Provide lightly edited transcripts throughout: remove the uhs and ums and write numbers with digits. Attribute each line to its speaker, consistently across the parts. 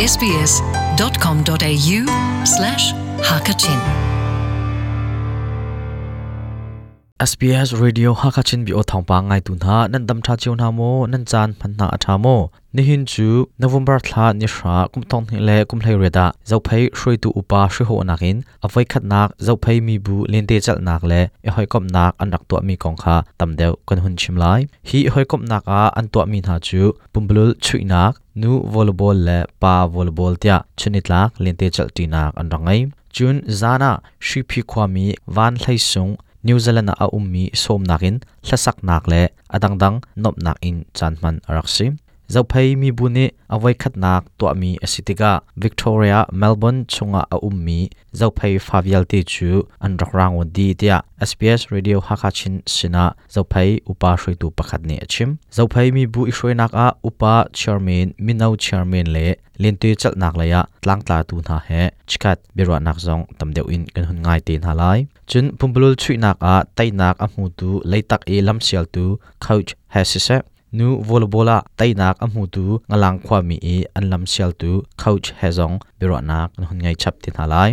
Speaker 1: sbs.com.au slash hakachin
Speaker 2: SBS Radio Hakachin bi o thawngpang ngai tu hna nan dam tha chiu hna maw nan caan hman hna a tha maw nihin cu November thla ni hra kum thong hnih le kum hlei riat ah Zophei hruaitu upa hriho nakin a voikhatnak Zophei mibu lente chalnak le i hawikomhnak an rak tuahmi kong kha tam deuh kan hun chim lai. Hi hawikomhnak ah an tuahmi hna cu pumpululh chuihnak, nu volleyball le pa volleyball tiah chunitlak lente chalhṭinak an rak ngei. Cun zan ah Hriphi khuami Van Hlei Sung New Zealand ah a ummi sawmnak in hlasaknak le a dangdang nuamhnak in caan hman a rak si. Zophei mibu nih a voikhatnak tuahmi a si tikah Victoria, Melbourne chungah a ummi Zophei fa vialte cu an rak rangon dih tiah SBS Radio Hakha Chin sinah Zophei upa hruaitu pakhat nih a chim. Zophei mibu i hruainak ah upa chairman, mino chairman le lente celhnak lei ah tlangtlatu hna he chikkhat biaruahnak zong tam deuh in kan hun ngai te hna lai. Cun pumpulul chuihnak ah teinak a hmutu leitak i lamsialtu coach he siseh Nu volleyball ah teinak a hmutu Ngalang khuami i an lamsialtu coach he zong biaruahnak an hun ngei chap te hna lai.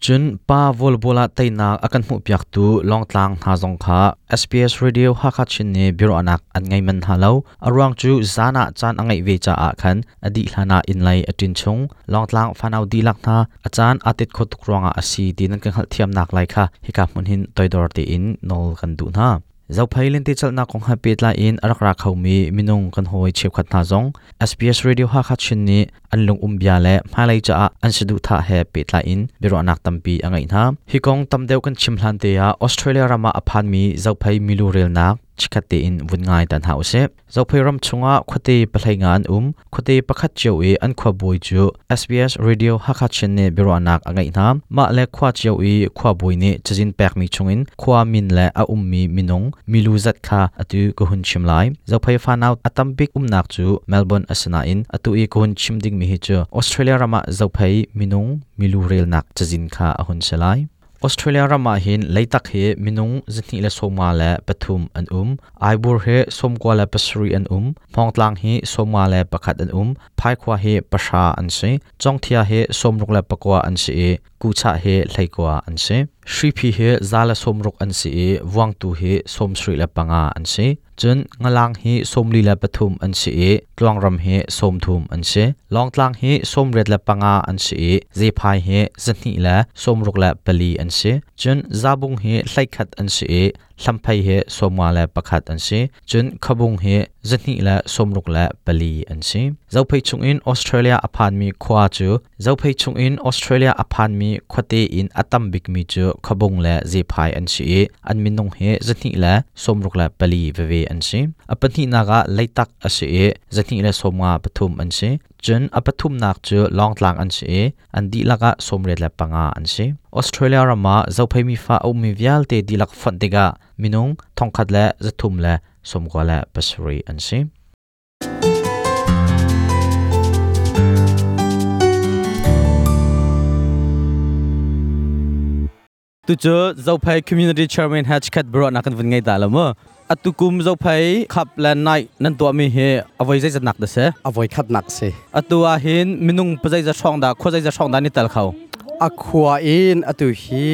Speaker 2: Cun pa volleyball ah teinak a kan hmuhpiaktu Lawngtlang hna zong kha SBS Radio Hakha Chin nih biaruahnak an ngei man hna lo. A ruang cu zan ah caan a ngeih ve caah khan a dih hlan ah inn lei a ṭin chung. Lawngtlang fanau dihlak hna a caan aa tet khawh tuk ruangah a si ti nan kan hngalhthiamnak lai kha hika hmun hin toidor tein nawl kan duh hna. Zophei lentecelhnak kong he pehtlai in a rak ra khomi minung kan hawi cheukhat hna zong SBS Radio Hakha Chin nih an lungum bia le hmailei caah an saduhthah he pehtlai in biaruahnak tampi a ngeih hna. Hi kong tam deuh kan chim hlan te ah Australia ram ah a phanmi Zophei milu relnak chikkhat tein vun ngai ta hna usih. Zophei ram chungah khuate pahlei nga an um. Khuate pakhat cio i an khuabawi cu SBS Radio Hakha Chin nih biaruahnak a ngeih hna. Mah le khua cio i khuabawi nih cazin pekmi chungin khua min le a ummi minung milu zat kha atu ka hun chim lai. Zophei fanau a tambik umnak cu Melbourne a si nain atu i ka hun chim dingmi hi cu Australia ram ah Zophei minung milu relnak cazin kha a hun si lai. Australia ram ah hin leitak hi minung 223 an um. Aibur hi 97 an um. Hmawngtlang hi 51 an um. Phaikhua hi 10 an si. Congthia hi 69 an si i Kuchah hi 19 an si. Hriphi hi 160 an si i Vuangtu hi 75 an si. Cun Ngalang hi 43 an si i Tluangram hi 30 an si. Lawngtlang hi 85 an si i Zephai hi 264 an si. Cun Zabung hi 11 an si i Hlamphei hi 51 an si. Cun Khabung hi 264 an si. Zophei chungin Australia a phanmi khua cu Zophei chungin Australia a phanmi khuate in a tam bikmi cu Khabung le Zephai an si i an minung hi 264 veve an si. A pahnihnak ah Leitak a si i 253 an si. Cun a pathumnak cu Lawngtlang an si i an dihlak ah 95 an si. Australia ram ah Zophei mifa a ummi vialte dihlak fonh tikah minung 1,397 an si.
Speaker 3: Tucu Zophei Community Chairman he chikhat biaruahnak kan vun ngei ta lo mu. Atu kum Zophei Cup le Night nan tuahmi hi a voi zeizat nak dah si?
Speaker 4: A voi khatnak si.
Speaker 3: Atu ah hin minung pazeizat hrawng dah khua zeizat hrawng dah ni tel kho?
Speaker 4: A khua in atu hi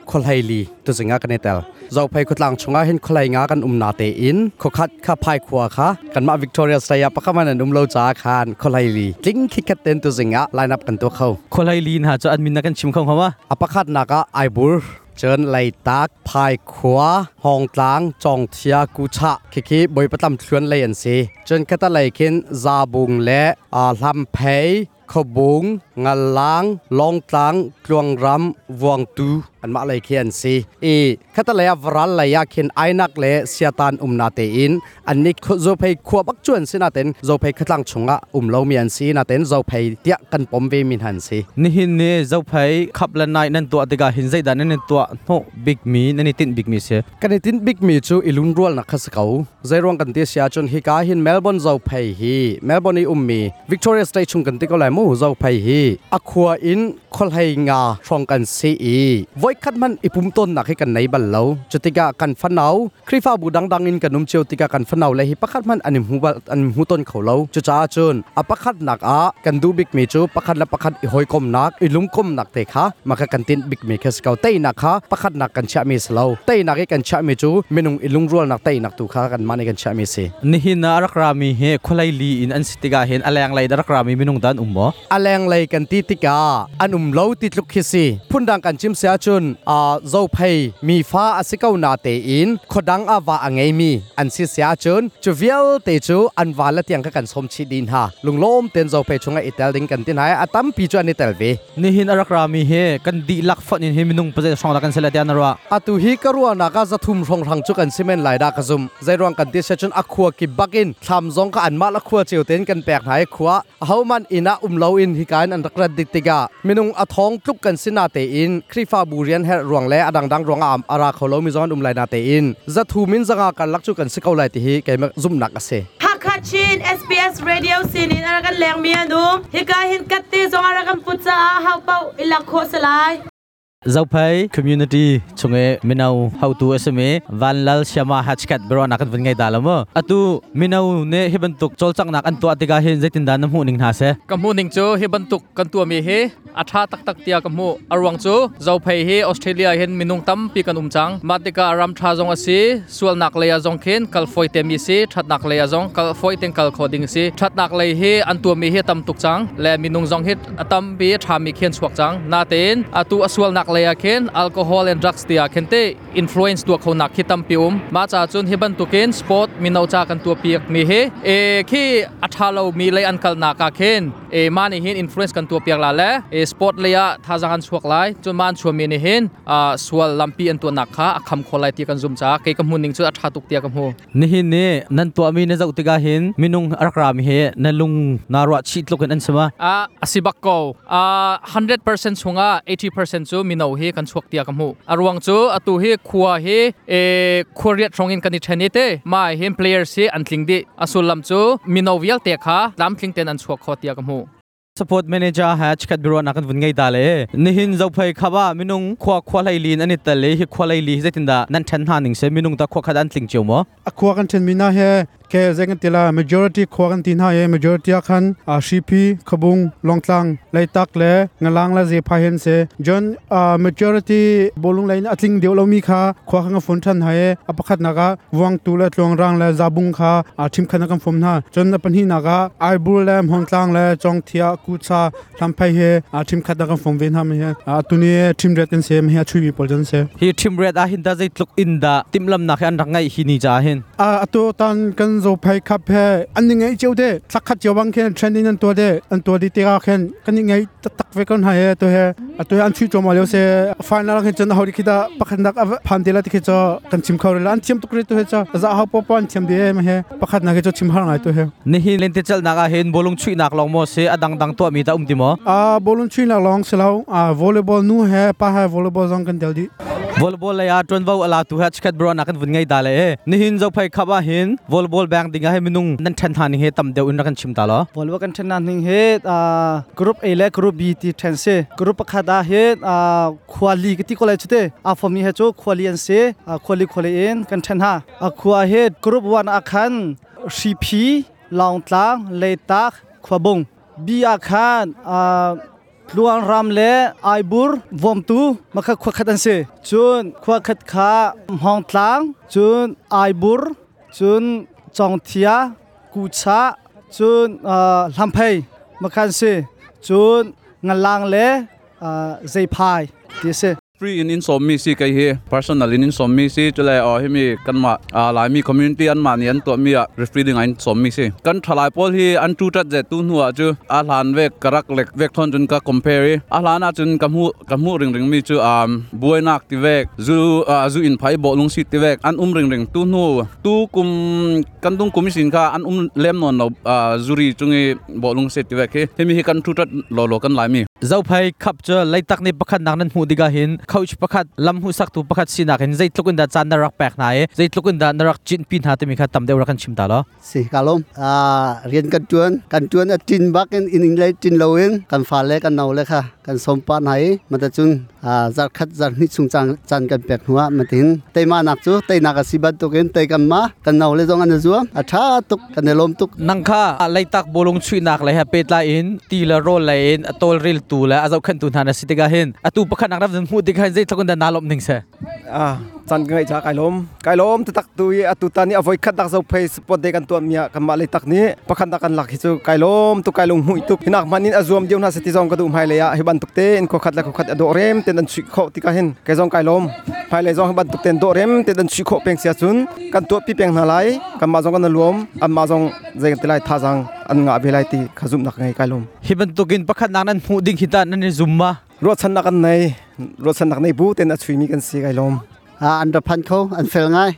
Speaker 4: khuahlei li tuzing ah kan i tel. Zophei khuatlang chungah hin khualei nga kan um na tein khuakhat kha phai khua kha kanmah Victoria State ah pakhat man an um lo caah khan khualei li tling khikhat ten tuzing ah line up kan tuah kho.
Speaker 3: Khualei li hna cu an min na kan chim kho hnga ma?
Speaker 4: A pakhatnak ah Aibur cun Leitak, Phaikhua, Hawngtlang, Cawngthia, Kuchah khikhi Bawipa thluan lei an si. Cun khatalei khin Zabung le Hlamphei, Khuabung, Ngalang, Lawngtlang, Tluangram, Vuangtu anmah lei khi an si. I khatalei ah varal lei ah khin Ainak le Siatan umna tein annih Zophei khua bak cu an si natein Zophei khuatlang chungah um lomi an si natein Zophei tiah kan pom ve mi hna an si.
Speaker 3: Nihin ni Zophei khap le nai nan tuah tikah hin zeidah nan i tuah hnawh bikmi nan i tinh bikmi si?
Speaker 4: Kan i tinh bikmi cu i lungrualnak kha si ko. Zeiruang kan ti si ahcun hika hin Melbourne Zophei hi Melbourne i ummi Victoria State chung kan ti ko lai mu Zophei hi a khua in Kholhei nga hrong kan si i voi khat man ipum ton nak hi kan nei bal lo. Chutika kan fanau Khrifa bu dang dang in kan um cheu tika kan fanau le hi pakhat man anim hu bal an hu ton kho lo. Chu cha chun a pakhat nak a kan du bik mi chu pakhat la pakhat i hoi kom nak i lung kom nak te kha maka kan tin bik mi khes kau te nak kha pakhat nak kan cha mi slo te nak i kan cha mi chu minung i lung rual nak te nak tu kha kan mani kan cha mi si.
Speaker 3: Nihin na rak rami he kholai li in an sitiga hen aleng lai rak rami minung dan ummo
Speaker 4: aleng lei kan ti tika an um lo ti tluk khi si phundang kan chim sia chun a zo phei mi fa asikau na te in khodang awa angei mi an si sia chun chu vial te chu an wa la tiang ka kan som chi din ha lunglom ten zo phei chunga itel ding kan tin hai atam pi chu ani tel ve.
Speaker 3: Nihin arak rami he kan di lak fon in he minung paze song da kan sela tian ra.
Speaker 4: Atu hi karua na ka zathum rong rang chu kan simen lai da ka zum zairong kan ti se chun akhua ki bakin thlam zong ka an ma la khua cheu ten kan pek nai khua hauman ina umlo in hi kain an rakrat dik tiga minung athong tluk kan sina te in khrifa burian her ruang le adang dang ruang am ara kholo mi zon um lai na te in zathu min zanga kan lak chu kan sikau lai ti hi keima zum nak ase.
Speaker 5: Hakachin SBS Radio sinin arakan leng mi anum hika hin katte zong arakan putsa hau pau ilak kho salai.
Speaker 3: Zophei community chunge minau how to sme vanlal shama hachkat bro nakan vun ngai dalamo atu minau ne heban tuk cholchak nak an to atika hin zaitin dan mu ning na se.
Speaker 6: Ka mu ning chu heban tuk kan tua mi he atha tak tak tia ka mu arwang chu Zophei he Australia hen minung tam pi kan umchang matika ram tha zong ase sual nak leya zong khen kal foi te mi se that nak leya zong kal foi teng kal khoding se that nak lei he an tua mi he tam tuk chang le minung zong het atam pi tha mi khen chuak chang na ten atu aswal nak leya khen alcohol and drugs tia khen te influence tua khona khitam pium ma cha chun heban tukin sport minau cha kan tua piak mi he e khi athalo mi lei an kal na ka khen e ma ni hin influence kan tua piak la le e sport leya tha jang an chuak lai chun man chu mi ni hin a sual lampi an tua nak kha akham kholai ti kan zum cha ke ka mun ning chu atha tuk tia ka mu.
Speaker 3: Ni hin ne nan tua mi ne zau tiga hin minung arakra mi he na lung na ro chi tlukin an sema.
Speaker 6: A asibak ko a 100% chunga 80% chu minau hi kan chuak tia ka mu arwang chu atu hi khuwa hi e khuriat rongin kan thani te ma hin players hi an tling di asul lam chu minau vial te kha lam tling ten an chuak kho tia ka mu.
Speaker 3: Support manager ha chkat biro nakan vun ngai dale nihin zophei khaba minung khwa khwa lai lin ani tale hi khwa lai li zaitin da nan than ha ning se minung ta khwa khadan tling cheu mo.
Speaker 7: Akhwa kan chen mina he ke zeng tila majority khwa kan tin ha ye majority khan a shipi khabung longtlang leitak le ngalang la je pha hen se jon majority bolung line atling deu lo mi kha khwa khang phone than ha ye apakhat naga wang tu la tlong rang la zabung kha a thim khana kam phom na jon pan hi naga aibur le hongtlang le chong thia kucha lamphai he a thim khat na kam phom ven ha me he a tuni thim ret kan se me he chui bi pol jon se.
Speaker 3: Hi thim ret a hin da zai tluk in da timlam na khan rangai hi ni cha hin.
Speaker 7: A ato tan kan zo phai khap he an ni ngai cheu de thakhat cheu bang khen trending an to de an to di te ka khen kan ni ngai tak ve kon ha he to he ato an chui choma leo se final khen chen hauri khida pakhat nak phan de la ti khe cho kan chim khawr la an chem tuk re to he cha za ha po pan chem de me he pakhat na ke cho chim har ngai to he.
Speaker 3: Ni hi len te chal na ga hen bolung chui nak long mo se adang dang to mi ta um ti mo.
Speaker 7: A bolung chui nak long se lau a volleyball nu he pa ha volleyball jong kan del di.
Speaker 3: Volleyball la ya ton vau ala tu ha chkat bro nakan vun ngai dale e ni hin zo phai khaba hin volleyball bang dinga he minung nan than than he tam deu in kan chim ta lo.
Speaker 8: Volleyball kan than nan he group A le group B ti than se group pakhada he khwali ki ti college te a form ni he chu khwali an se khwali khwali in kan than ha a khwa he group 1 akhan CP Longtlang Leitak Khwabung B akhan Luang Ram le Aibur Vomtu makha khwa khat an se chun khwa khat kha Hongtlang chun Aibur chun Chongthia Kucha chun Lamphei makhan se chun Ngalang le Zeiphai ti se.
Speaker 9: Free in in som mi si kai he personal in in som mi si chule o hi mi kan ma a lai mi community an ma ni an to mi a referee ding an som mi si kan thalai pol hi an tu tat je tu nuwa chu a hlan ve karak lek vek thon chun ka compare a hlan a chun ka mu ring ring mi chu buai nak ti vek zu zu in phai bo lung si ti vek an ring ring tu nu tu kum kan dung kum sin kha an lem non lo zuri chungi bo lung se ti vek he mi hi kan tu tat lo lo kan lai mi.
Speaker 3: Zophei khap cha leitak ni pakhat nak nan mu diga hin Coach pakhat lam hu sak tu pakhat sinak in zeitluk in da caan na rak pek hna i zeitluk in da na rak chin pi hna timi kha tam deuh rak kan chim ta lo.
Speaker 10: Si kalom a rian kan tuan kan tuan a tin bak in in le tin lo in kan fa le kan nau le kha kan som pa hna i mata cun zar khat zar hnih chung cang chan kan pek hnuah matin teima nak chu teinak a si bantukin tei kan ma kan nau le zong an zuam a tha tuk kan i lawm tuk.
Speaker 3: Nang kha Leitak bolung chuihnak le he pehtlai in ti le rawl lei in a tawlrel tu le a zohkhenhtu hna na si tikah hin atu pakhat nak ram hmuh tikah hin zeitluk in dah naa lawmh ning si?
Speaker 11: Caan ka ngeih ca kai lawm. Kai lawm taktak tu i atu tan i a voi khat nak zo phei sport day kan tuah mi ah kanmah Leitak nih pakhat nak kan lak hi cu kai lawm tuk, kai lung hmuih tuk. Hinak hman in a zuam dio hna se ti zong ka duh. Hmailei ah hi bantuk te in khua khat le khua khat a dawh rem ten an chuih khawh tikah hin kei zong kai lawm. Hmailei zong hi bantuk ten dawh rem ten an chuih khawh peng sia cun kan tuah pi peng hna lai. Kanmah zong kan luam, anmah zong zei kan ti lai, thazang an ngah ve lai ti kha zumhnak ngei, kai lawm.
Speaker 3: Hi bantukin pakhat nak nan hmuh ding hi ta nan i zum ma?
Speaker 11: Ruahchannak kan nei, ruahchannak nei bu ten a chuimi kan si, kai lawm.
Speaker 10: An ra phan kho, an fel ngai.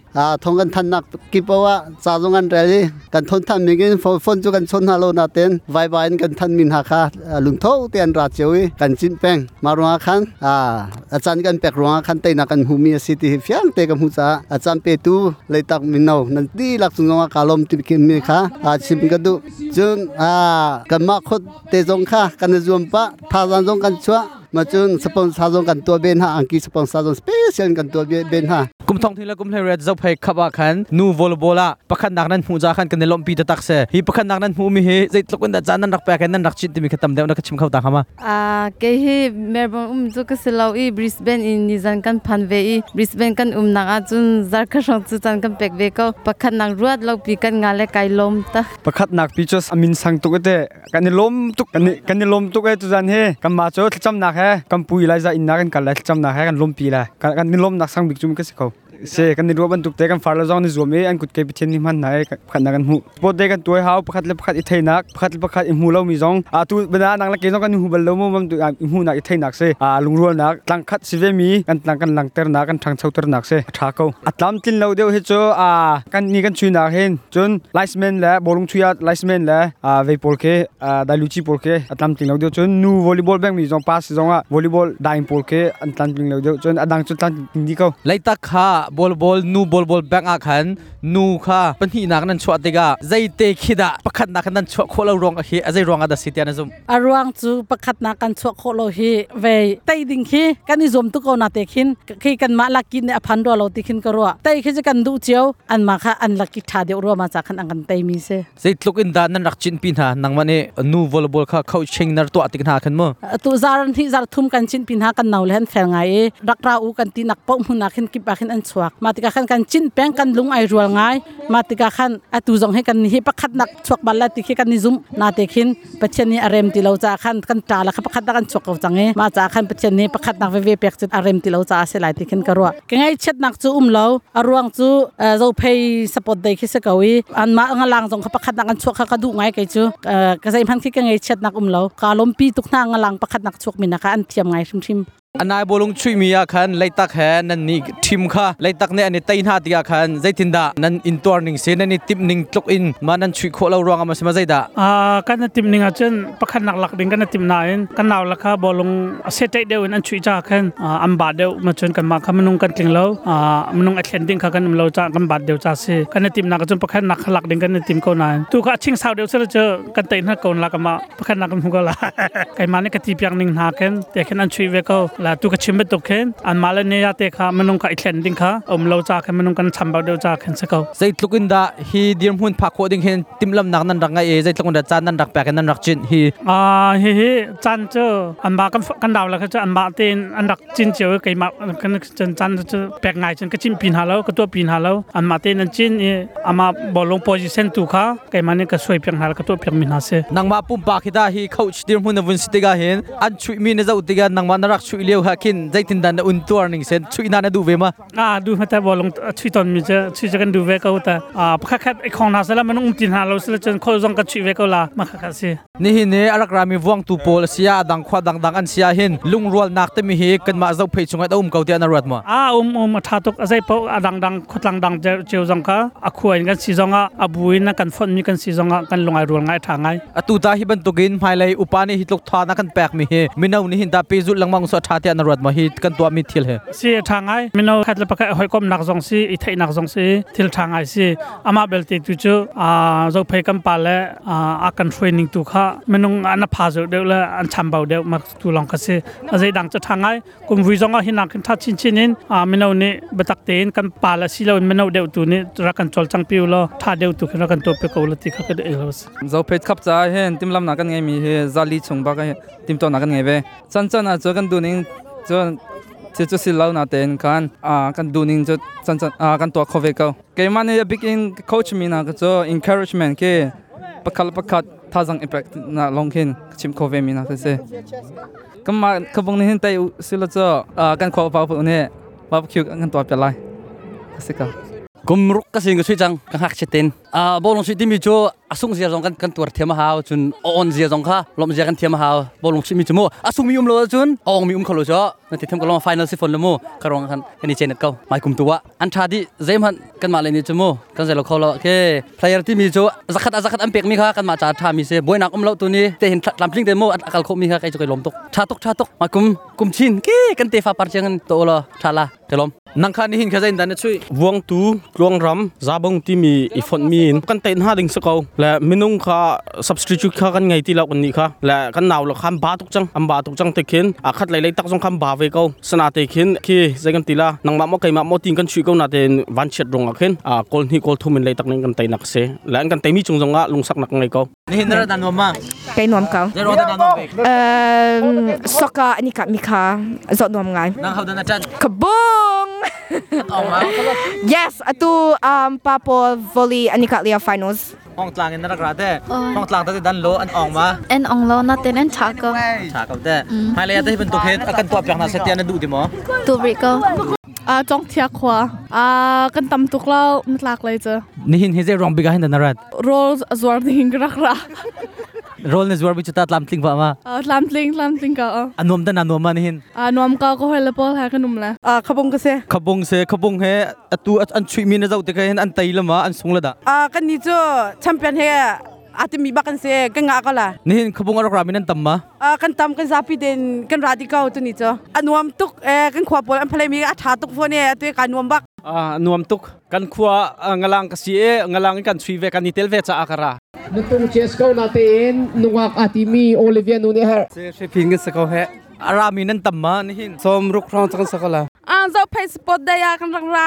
Speaker 10: Thong kan than nak kip ah ca zong an rel i kan thon than mi in phone cu kan chon hna lo na ten Viber in kan than min ha kha lungtho te an ra cheu i kan cin peng ma ruang khan a chan kan pek ruang khan teina kan hmu mi a si ti hi fiang te ka hmu ca a chan pe tu Leitak mino nan ti lak chung zong ka lom ti mi kha chim ka du. Cun kanmah khot te zong kha kan zuam pa thazang zong kan chuah ma cun sponsor zong kan tua ben ha, angki sponsor zong special kan tua ben ha.
Speaker 3: Kum thong thing le kum hlei ret Zophei khap ah khan nu volleyball ah pakhat nak nan hmu ja khan kan i lawmhpi taktak se. Hi pakhat nak nan hmu mi hi zeitluk in dah caan nan rak pek nan rak chit timi kha tam deuh na ka chim kho ta hama?
Speaker 12: Kei hi Melbourne um cu ka si lo i Brisbane in nizan kan phan ve i Brisbane kan umnak ah cun zarkhat hrawng cu caan kan pek ve ko. Pakhat nak ruat lo pi kan nga le kai lawm ta.
Speaker 13: Pakhat nak pi cu a min sang tuk te, kan i lawm tuk, kan i lawm tuk e. Tuzan he kan ma cu thlacamnak he kan pu Elijah inn ah kan kal lai, thlacamnak he kan lawmpi lai. Kan i lawmnak sang bik cu ka si ko se. Kan i ruah bantuk te kan far le zong ni zuam i an kut ke Pathian nih hman hna i pakhat nak kan hmuh. Sport day kan tuai hau, pakhat le pakhat i theinak, pakhat le pakhat i hmu lo mi zong a tu bana nang le ke zong kan hmu bal lo mu mam tu i hmuhnak, i theinak se, a lungrualnak tlang khat si ve mi kan tlang kan langternak, kan ṭhangchoternak se, a ṭha ko. A tlam tlin lo deuh hi cu a kan ni kan chuinak hin cun linesman le bawlung chuih ah linesman le vei pawl khi, dailuci pawl khi a tlamtling lo deuh. Cun nu volleyball beng mi zong pass zong ah volleyball daing pawl khi an tlamtling lo deuh. Cun a dang cu tlamtling dih ko.
Speaker 3: Leitak kha ball nu ball bank ah khan nu kha pahnihnak nan chuah tikah zeite khi dah pakhatnak khan nan chuah khawh lo ruang hi a zei ruang ah dah si tiah na zumh?
Speaker 14: A ruang cu pakhatnak kan chuah khawh lo hi ve tei ding khi kan i zuam tuk ko na te khin khi kan mah laki nih a phan rua lo ti khin ka ruah. Tei khi cu kan duh cio, an mah kha an laki tha deuh rua ma cha khan an kan tei mi si.
Speaker 3: Zeitluk in dah nan rak cin pi hna, nangmah nih nu volleyball kha coaching nar tuah tik hna khan mu?
Speaker 14: Tu zar hnih zar thum kan cin pin ha. Kan nau le han fel ngai i rak ra u kan ti nak po hmun ah khin kip ah khin an chuak. Ma tikah khan kan cin peng, kan lung ai rual ngai. Ma tikah khan atu zong he kan hi pakhat nak chuak bal la ti khi kan ni zum na te khin Pathian nih a rem ti lo ca khan kan ta la kha pakhat nak an chuak ko cang i ma ca khan Pathian nih pakhat nak veve pek cu a rem ti lo ca se lai ti khin ka ruah. Ka ngai chiat nak cu um lo. A ruang cu Zophei support day khi se ko i an ma nga lang zong kha pakhat nak an chuak kha ka duh ngai. Kei cu ka zei hman khi ka ngei chiat nak um lo. Ka lompi tuk hna nga lang pakhat nak chuak mi na kha an thiam ngai hrimhrim.
Speaker 3: Anai bolung chuih mi ah khan Leitak he nan ni team kha Leitak nih an i tei hna tikah khan zeitindah nan intuar ning si, nan i timh ning tluk in ma nan chuih khawh lo ruang ah ma si ma zeidah?
Speaker 15: Kan i timh ning ahcun pakhat nak lak ding kan i timh nain kan nau la kha bolung a se ṭeih deuh in an chuih ca khan an ba deuh ma cun kanmah kha minung kan tling lo, minung a thlen ding kha kan um lo ca kan bat deuh ca si. Kan i timh nak ahcun pakhat nak kha lak ding kan i tim ko nain tu kha a ching sau deuh sila cu kan tei hna ko la kama pakhat nak kan hmu ko la. Keimah nih ka ti piak ning hna khin te khin an chuih ve ko la. Tu ka chim bantuk khin an mah le ne ya te kha minung kha i thlen ding kha um lo ca khin minung kan chambau deuh ca khin si ko.
Speaker 3: Zeitluk in dah hi dirhmun phak khawh ding hin timhlamnak nan rak ngai i zeitluk in dah caan nan rak pek in nan rak cinh hi?
Speaker 15: Hi hi caan cu anmah kan dau la kha cu anmah tein an rak cin cio i keimah kan cun caan cu pek ngai cun ka cin pi hna lo, ka tuah pi hna lo. Anmah tein an cin i amah bawlung position tu kha keimah nih ka suai piak hna, ka tuah piak mi hna si.
Speaker 3: Nangmah pumpak hi dah hi coach dirhmun na vun si tikah hin an chuih mi na zoh tikah nangmah na rak chuih lio ha khin zeitin dah na un tuar ning sen, chuih na na duh ve ma?
Speaker 15: Duh hmata bawlung chuih ton mi cu chuih cu kan duh ve ko ta. Pakhat khat i khong hna sala man um ti hna lo sila cun khol zong kan chuih ve ko la ma kha kha si.
Speaker 3: Nihin ni a rak rami vuangtu pawl a sia dang khua dangdang an sia hin lungrualnak timi hi kanmah Zophei chungah a um ko tiah na ruat maw?
Speaker 15: Um, a tha tuk. A zei paoh a dangdang khuatlang dang cheu zong kha a khua in kan si zong ah, a bu in kan fonh mi kan si zong ah kan lungai rual ngai, tha ngai.
Speaker 3: Atu ta hi bantukin hmailei upa nih hi tluk tha na kan pek mi hi mino nih hin ta pe zulh lengmang so tha. tha te na ruat ma hi kan tua mi thil he
Speaker 15: Si tha ngai mino khat le pakhat hoi kom nak zong si i theih nak zong si thil tha ngai si ama belte tu chu a zo phei kan pa le a kan hruai ning tu kha minung an pha zo deuh le an cham bau deuh mak tu long kha si a zei dang chu tha ngai kum vui zong ah hinak tha chin chin in mino nih biatak tein kan pa le si lo in mino deuh tu nih rak kan chol chang piu lo tha deuh tu khin rak kan to pe ko lo ti kha ka de lo si
Speaker 6: zo phet khap cha hen timlam na kan ngai mi he zali chung ba ka tim to na kan ngai ve chan chan a chu kan du ning chu che chu sil lo na ten kan a kan du ning chu chan chan a kan to kho ve ko keima ne big in coach mi na ka chu encouragement ke pakhal pakhat thazang impact na long khin chim kho ve mi na ka se kama khabung ni hin tai silo chu kan kho pa pu ne barbecue kan to pe lai sika
Speaker 3: Kumruk ka sing ka sui chang ka hak chetin a bolong sui timi chu asung zia zong kan kan tuar thiam hau chun on zia zong kha lom zia kan thiam hau bolong sui mi chu mu asung mi um lo chun ong mi um kholo cho na ti tham ka long final si phone lo mu karong kan kan ni chen ko mai kum tuwa an tha di zem han kan ma le ni chu mu kan zelo kholo ke player ti mi chu zakhat zakhat am pek mi kha kan ma cha tha mi se boinak um lo tu ni te hin tlam tling te mu akal kho mi kha kai chu kai lom tok tha tok tha tok mai kum kum chin ke kan te fa par chang to lo tha la te lom nang kha ni hin kha zain dan chui
Speaker 16: vuang tu tluang ram zabong ti mi i font mi in kan tein ha ding sako le minung kha substitute kha kan ngai ti lo kan ni kha le kan naw lo kham ba tuk chang am ba tuk chang te khin a khat lai lai tak jong kham ba ve ko sana te khin khi zai kan ti la nang ma mo kai ma mo tin kan chui ko na ten van chet rong a khin a kol ni kol thumin lai tak ning kan tein nak se le kan te mi chung jong a lungsak nak ngai ko
Speaker 3: ni hin ra dan ma
Speaker 17: kai nuam ka
Speaker 3: zai ro dan nom be
Speaker 17: soka ani ka mi kha zo nuam ngai
Speaker 3: nang hau dan chan
Speaker 17: kabung Yes, atu papo volley ani ka lia finals.
Speaker 3: Hong tlang in rak ra te hong tlang ta dan lo an ong ma
Speaker 18: en ong lo na ten en cha ko
Speaker 3: cha ko te hai le ta hi ban tu khet akan to pyak na se tian du ti mo
Speaker 18: tu ri ko
Speaker 19: a chong thia khwa a kan tam tuk lo tlak lai cha
Speaker 3: ni hin he je rong biga hin dan rat
Speaker 19: roll azwar ding rak ra
Speaker 3: roll ne zwar bi chuta tlam tling ba ma
Speaker 19: tlam tling ka
Speaker 3: anom dan anom ma ni hin
Speaker 19: anom ka ko hel pol ha kanum la
Speaker 20: a khabong ka se
Speaker 3: khabong se khabong he atu an chui mi na zau te ka hin an tai lama an sung la da
Speaker 20: a kan ni chu champion he atimi ba kan se kan nga ka la
Speaker 3: ni hin khabong arok ramin an tam ma
Speaker 20: a kan tam kan zapi den kan radikau tu ni chu anuam tuk e kan khwa pol an phalai mi a tha tuk phone e atu ka nuam bak
Speaker 16: a nuam tuk kan khwa ngalang ka si e ngalang kan chui ve kan ni tel ve cha akara
Speaker 21: Nutung Chesko natin nungak atimi Olivia Nune
Speaker 13: Se se ping se ko he
Speaker 3: arami nan tamma ni hin
Speaker 13: som ruk rong chang sakala
Speaker 19: a zo phai sport da ya kan rang ra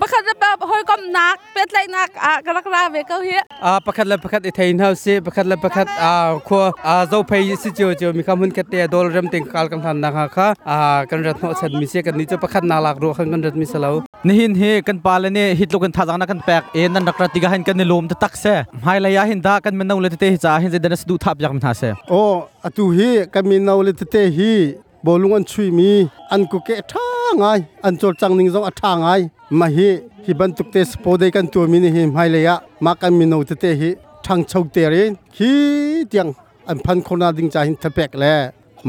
Speaker 19: pakhat la hoi kom nak pet lai nak a rak ra ve ko hi
Speaker 13: a pakhat la pakhat i thein hau se pakhat la pakhat a kho a zo phai si cheu cheu mi kham hun khat te dol ram ting kal kan than na kha kha a kan rat no chan mi se kan ni chu pakhat na lak ro khan kan rat mi salo
Speaker 3: ni hin he kan pa le ne hit lo kan tha jang na kan pek e nan rak ra ti ga hin kan ni lom ta tak se hai la ya hin da kan men no le te cha hin je dan du thap yak min ha se
Speaker 10: o atu hi kan min no le te hi bolung an chui mi an ku ke tha ngai an chol chang ning zong a tha ngai ma hi hi ban tuk te spo de kan tu mi ni hi mai le ya ma kan mi no te te hi thang chau te re hi tiang an phan khona ding cha hin thapek le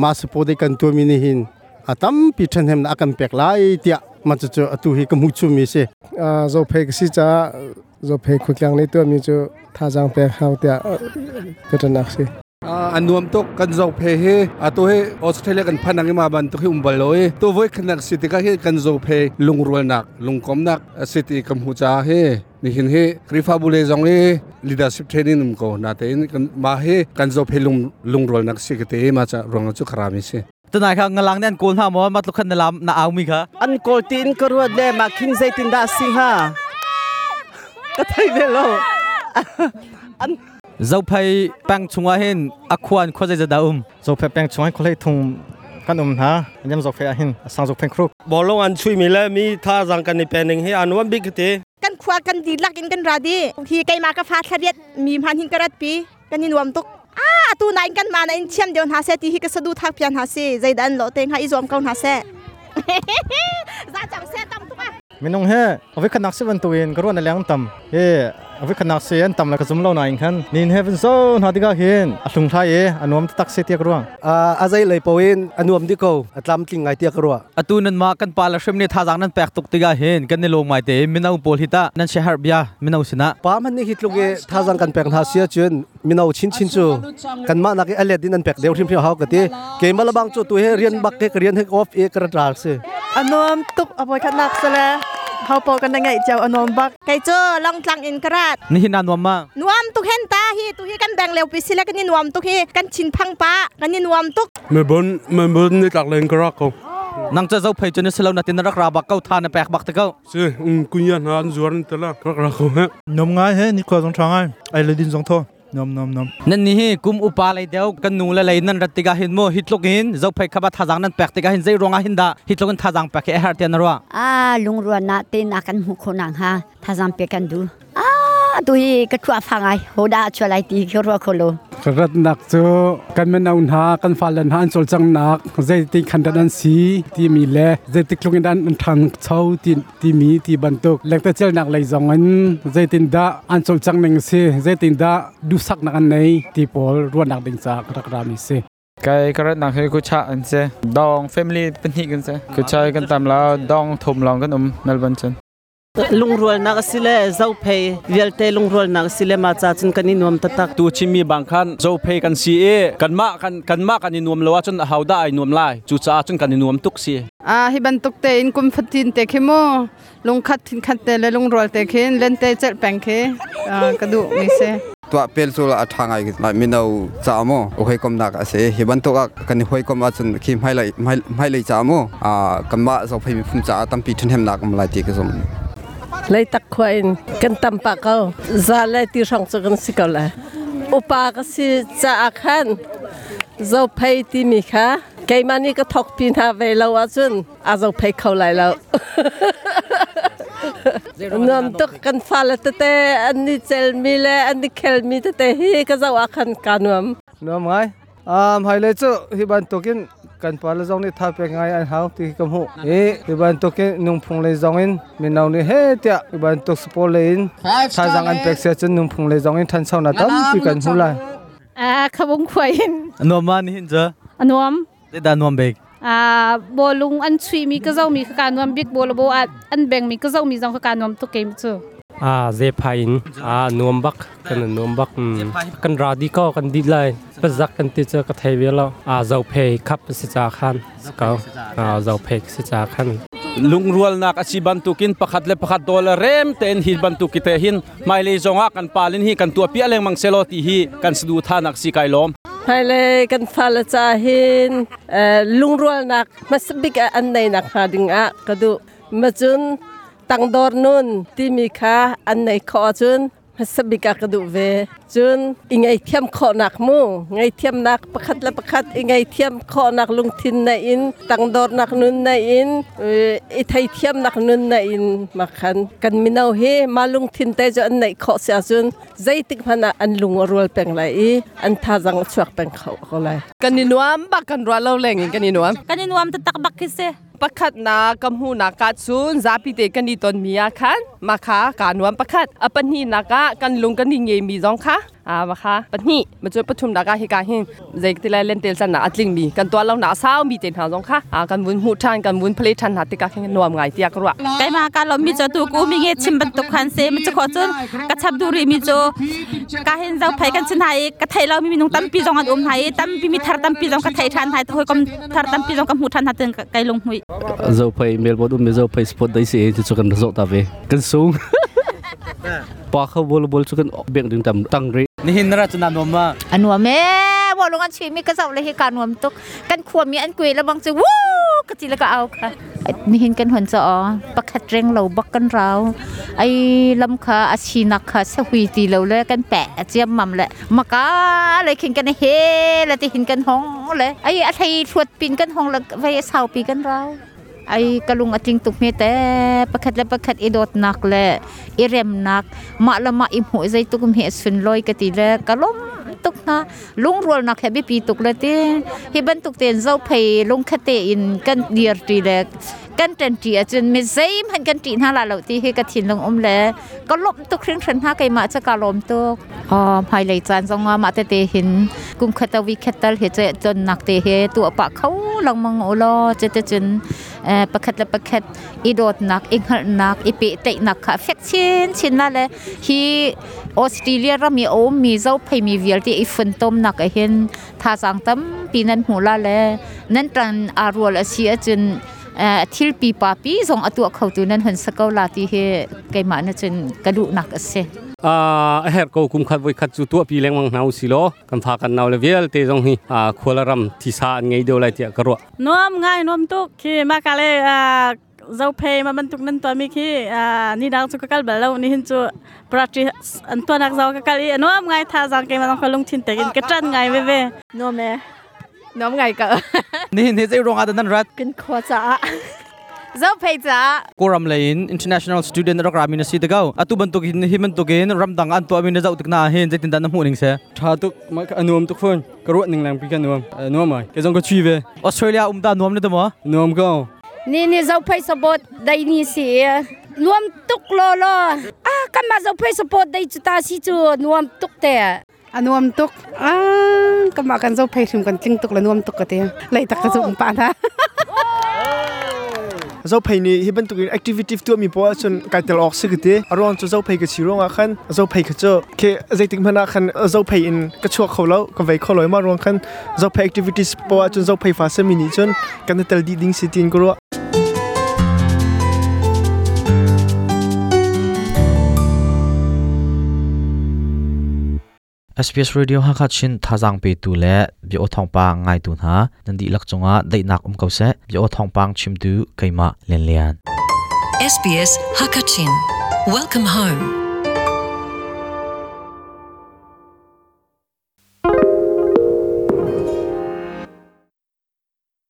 Speaker 10: ma spo de kan tu mi ni hin atam pi than hem na kan pek lai tia ma chu chu atu hi ka mu chu mi se
Speaker 22: a zo phek si cha zo phek khu kyang ni tu mi chu tha jang pek hau tia ka ta nak si
Speaker 23: anuam tok kan zo phe he ato he Australia kan phanang ma ban to he umbal loi to voi khanak city ka he kan zo phe lungrol nak lungkom nak city kam hu cha he ni hin he krifa bule jong he leadership training um ko na te kan ma he kan zo phe lung lungrol nak si ke te ma cha rong chu kharami se
Speaker 3: ตนายค่ะงลังเนี่ยโกนหามอมาตุขันนลามนาเอามีค่ะ
Speaker 24: อันโกลตีนกรวดเลยมาคิงใจตินดาสิฮะก็ไทยเวโลอัน
Speaker 3: เจ้าไพ่แป้งชงว่าเห็นอควานข้อใจจะดาอุม
Speaker 25: เจ้าไพ่แป้งชงให้คนเลยทุงกันอุมฮะยำเจ้าไพ่เห็นสังเจ้าไพ่ครุก
Speaker 26: บอลลงอันช่วยมีแล้วมีท่าจังกันในเป็นหนึ่งให้อันวันบิ๊กเต
Speaker 27: กันคว้ากันดีลักอินกันราดีที่ไกมากระฟาทะเรียดมีพันหินกระปีกันนินวมตุกอ้าตูนายกันมาในเชียมเดียวหาเซตีฮิกสะดูทักเพียนหาเซใจดันโลเต็งหาอิจวมเกาหาเซจ้าจังเซตำตุกอ่ะ
Speaker 25: มินงเฮเอาไว้ขนักสิวันตัวเองกรวนอะไรต่ำเฮ Avi khanak se an tam la ka zum lo na in khan nin heaven so na diga hin a hlung thlai e anuam tak se tiak ruang.
Speaker 1: A zai lei poin anuam di ko atlam tling ngai tiak ruwa.
Speaker 6: Atu nan ma kan pa la hrim ni thazang nan pek tuk tiga hin kan ni lung mai te mino pawl hi ta nan share bia mino sina.
Speaker 1: Pa man ni hi tluk e thazang kan pek hna sia chun mino chin chin chu kan ma nak e alet din an pek deu hrim hrim hau ka ti ke ma labang chu tu he rian bak ke rian he off e kar ral se.
Speaker 2: Anuam tuk apoi khat nak sala hau po kan ngai chau anuam bak.
Speaker 27: Kai chu long tlang in karat.
Speaker 6: Ni hin nuam ma.
Speaker 27: Nuam tuk hen ta hi tu hi kan bang leo pi sila kan ni nuam tuk hi kan chin phang pa kan ni nuam tuk.
Speaker 4: Melbourne Melbourne ni tlak len karak ko.
Speaker 6: Nang cha zo phei chu ni selo na tin rak ra bak kau tha na pek bak te kau.
Speaker 4: Si kunya na an zuar te la rak ra ko he.
Speaker 25: Nom ngai he ni kwa zong tha ngai ai le din zong tho nom nom nom.
Speaker 6: Nan ni hi kum upa lei deu kan nu le lei nan rat tiga hin mo hitluk in zo phei khaba thazang nan pek tiga hin zei ronga hin da hitluk in thazang pek he har te na ro.
Speaker 5: A lungruan na te na kan mu kho nang ha thazang pe kan du a tu hi ka thua phangai hoda chulai ti khro kholo.
Speaker 7: Rat nak chu kan men aun ha kan falen han chol chang nak zei ti khan dan an si ti mi le zei ti klung in an thang chau ti ti mi ti bantuk lek ta chel nak lei zong an zei tin da an chol chang ning si zei tin da du sak nak an nei ti pol ruan nak ding cha rak ra mi si.
Speaker 8: Kai karat nak he ku cha an se dong family pahnih kan se ku chai kan tam la dong thum long kan um Melbourne chen.
Speaker 24: Lungrual nak sile zo phei vialte lungrual nak sile ma cha chun kan nuam tatak.
Speaker 9: Tu chimi bang khan zo phei kan si e kan ma kan kan ma kan nuam lo chun hauda ai nuam lai chu cha chun kan nuam tuk si.
Speaker 12: A hi bantuk te in kum fatin te khemo lungkhat thin khat te le lungrual te khin len te chel peng khe ka du mi se.
Speaker 28: ตัวเปลโซลอัฐางไงลายมินเอาจามโอเคกมนักเสฮิบันตัวกันหอยกมอาจนคิมให้เลยให้เลยจามอ่ากำมาสอบให้มีภูมิจาตั้มปีทุนเฮมนักมลายตีกสม
Speaker 24: เลยตักควายกันตำปากเขาซาเลยที่ช่องจะกันสิเกาเลยอุปากสิจะอาคันเจ้าเพยที่มีค่ะไกมานี่ก็ทกพินหาเวลาจุนอาเจ้าเพยเขาไหลแล้วนำตุกกันฟาลตเตอันนี้เจลมีเลอันนี้เคลมีตเตฮีก็เจ้าอาคันการนวม
Speaker 11: นวมไงหายเลยจุฮิบันตุกินกันปาละจงนี่ท่าเป็นไงอันเฮาที่กำหูเอฮิบันตุกินนุ่งพงเลยจงอินมีนาวนี่เฮเตียฮิบันตุกสปอเลอินท่าจังอันเป็กเสียจนนุ่งพงเลยจงอินทันเช้าหน้าตั้มที่กันหูไร
Speaker 12: ขบงควาย
Speaker 6: นวมมานี่เจ
Speaker 12: อนวม
Speaker 6: ได้ดานวมเบก
Speaker 12: บอลุงอันชุยมีก็เจ้ามีขการนวมบิ๊กบัวลโบอันแบ่งมีก็เจ้ามีจังขการนวมตุกเกมจู
Speaker 29: เจพายนนวมบักกันนวมบักกันราดีก็กันดีเลยประจักกันที่เจอกระเทยแล้วเจ้าเพยขับสิจาขันสกาวเจ้าเพยสิจาขัน
Speaker 9: ลุงรัวนักอาชีบันตุกินประคัดเลประคัดโดลเรมเตนหิบันตุกิเตหินไม่เลยจงอากันปาลินฮีกันตัวเปียเลงมังเซโลตีฮีกันสะดูท่านักสีไกลม
Speaker 24: ให้เลยกันฟาลจาหินลุงรัวนักมาสบิกอันในนักหาดิงอะกระดูมาจุนตังดอร์นุนที่มีค่าอันในขอจุนมาสบิกกระดูเวจุนอิงไอเทียมขอนักมูไงเทียมนักประคัดละประคัดอิงไอเทียมขอนักลุงทินในอินตังดอร์นักนุนในอินอิไทยเทียมนักนุนในอินมาขันกันมินเอาเฮมาลุงทินแต่จะอันในขอเสียจุนใจติกพนาอันลุงรัวเป็นไรอันท่าจังชวกเป็นเขาเขาเลย
Speaker 30: กันนินวมบักกันรัวเล่าแรงกันนินวม
Speaker 12: กันนินวมจะตักบักคิเซ
Speaker 30: ประคัดนากำหูนากาซุนซาปิเตกันนี่ตอนมีอาคันมาคากานวมประคัดอปนีนากะกันลุงกันนี่เงมีจองค่ะมาค่ะปนีมาช่วยประชุมนากะเฮกาหินเจกติไลเล่นเตลสันนาอัตลิงมีกันตัวเราหนาสาวมีเต็นหาจองค่ะกันวุ้นหูทันกันวุ้นเพลทันหาติกาแข่งนวมไงเตียกรัว
Speaker 12: ไกมาการเรามีจอตูกูมีเงชิมบรรทุกคันเซมันจะขอจนกระชับดูรีมีโจกาเห็นเจ้าไผกันชินไทยกระไทยเรามีมีนุ่งตั้มปีจองอันอมไทยตั้มปีมีทารตั้มปีจองกระไทยทันไทยหอยกมทารตั้มปีจองกำหูทันหาเตือนไกลงหุย
Speaker 31: เจ้าไผเมลบอดอุ้มเจ้าไผสปอตได้สิที่จุกันโซตาเวกันสูงปอเขาบอลบอลจุกันเบี่ยงดึงตำตั้งรี
Speaker 6: นี่หินราชนานวมมา
Speaker 32: อันวมแม่บอลงอันชีมีกระเจ้าเลยให้การวมตุกกันขวมีอันกุยแล้วบางจะวู้กระจีแล้วก็เอาค่ะนี่หินกันหันจะอ๋อประคัดเร่งเราบักกันเราไอ้ลำคาอาชีนักค่ะเสหุยตีเราเลยกันแปะเจียมมั่มเลยมากาเลยขินกันเฮแล้วที่หินกันห้องเลยไอ้อะไรทวดปีนกันห้องแล้วไปเสาปีกันเราไอ้กะลุงอจิงตุกเมแต่ประคัดและประคัดอีโดดนักและอีเรมนักมาละมาอิมหัวใจตุกเมสุนลอยกะตีและกะล้มตุกนะลุงรัวนักแฮบิปีตุกละตีฮิบันตุกเตียนเจ้าเพยลุงคเตอินกันเดียร์ตีและ Kan ṭanṭi ahcun mi zeihmanh kan ṭih hna la lo ti hi ka thinlung um le ka lawmh tuk hringhran hna keimah cu ka lawm tuk. Hmailei caan zong ah mah tete hin kum khat a weekend tal hi cu tonnak te hi tuah pah kho lengmang u law cuticun pakhat le pakhat i dawtnak i hngalhnak i pehtlaihnak kha fek chinchin la le hi Australia ram i a ummi zophei mi vialte i funtomnak ah hin thazaang tampi nan hmu la le nan ṭan aa rual a si ahcun thil pipa pi zong a tuah khotu nan hun sa ko la ti hi keimah na cun ka duhnak a si.
Speaker 29: A herh ko kum khat voi khat cu tuah pi lengmang hna usi law kan fa kan nau le vialte zong hi khual ram thisa an ngei deuh lai tiah ka ruah.
Speaker 10: Nuam ngai nuam tuk khi ma ka le zophei ma bantuk nan tuah mi khi ni dang cu ka kal bal lo ni hin cu practice an tuanak zau ka kal i nuam ngai tha zang ke ma ka lungthin tekin ka tran ngai ve ve.
Speaker 2: Nuam e. Nuam ngai ka.
Speaker 9: Nihin hi zei ruang ah dah nan rat?
Speaker 2: Kan khua caah.
Speaker 12: Zophei caah.
Speaker 9: Kawlram lei in international student rak rami na si te ko. Atu bantuk in hi bantuk in ramdang an tuahmi na zoh tik na hin zeitin dah na hmuh ning se?
Speaker 4: Tha tuk a nuam tuk fawn. Ka ruah ning lang pi ka nuam. Nuam ai. Ke zong ka chui ve.
Speaker 9: Australia um ta nuam ne te mo?
Speaker 4: Nuam ko.
Speaker 13: Ni ni zophei support dai ni si nuam tuk lo lo. Ah kan ma zophei support dai cu ta si cu nuam tuk te.
Speaker 14: A nuam tuk. Kamah kan zophei hrim kan tling tuk le nuam tuk ka ti. Leitak ka zum pa hna.
Speaker 15: Zophei nih hi bantuk in activity tuahmi poah ahcun kai tel awk si ka ti. A ruang cu zophei ka si ruangah khan zophei kha cu khi zeitik hmanh ah khan zophei in ka chuak kho lo, ka vei kho lo i mah ruang khan zophei activities poah ahcun zophei fa sami nih cun kan i tel dih ding si tiin ka ruah.
Speaker 16: SBS Radio Hakha Chin thazaang petu le bia aw thawngpang ngaitu hna nan dihlak cungah daihnak um ko seh. Bia aw thawngpang chimtu keimah Lian Lian.
Speaker 17: SBS Hakachin. Welcome home.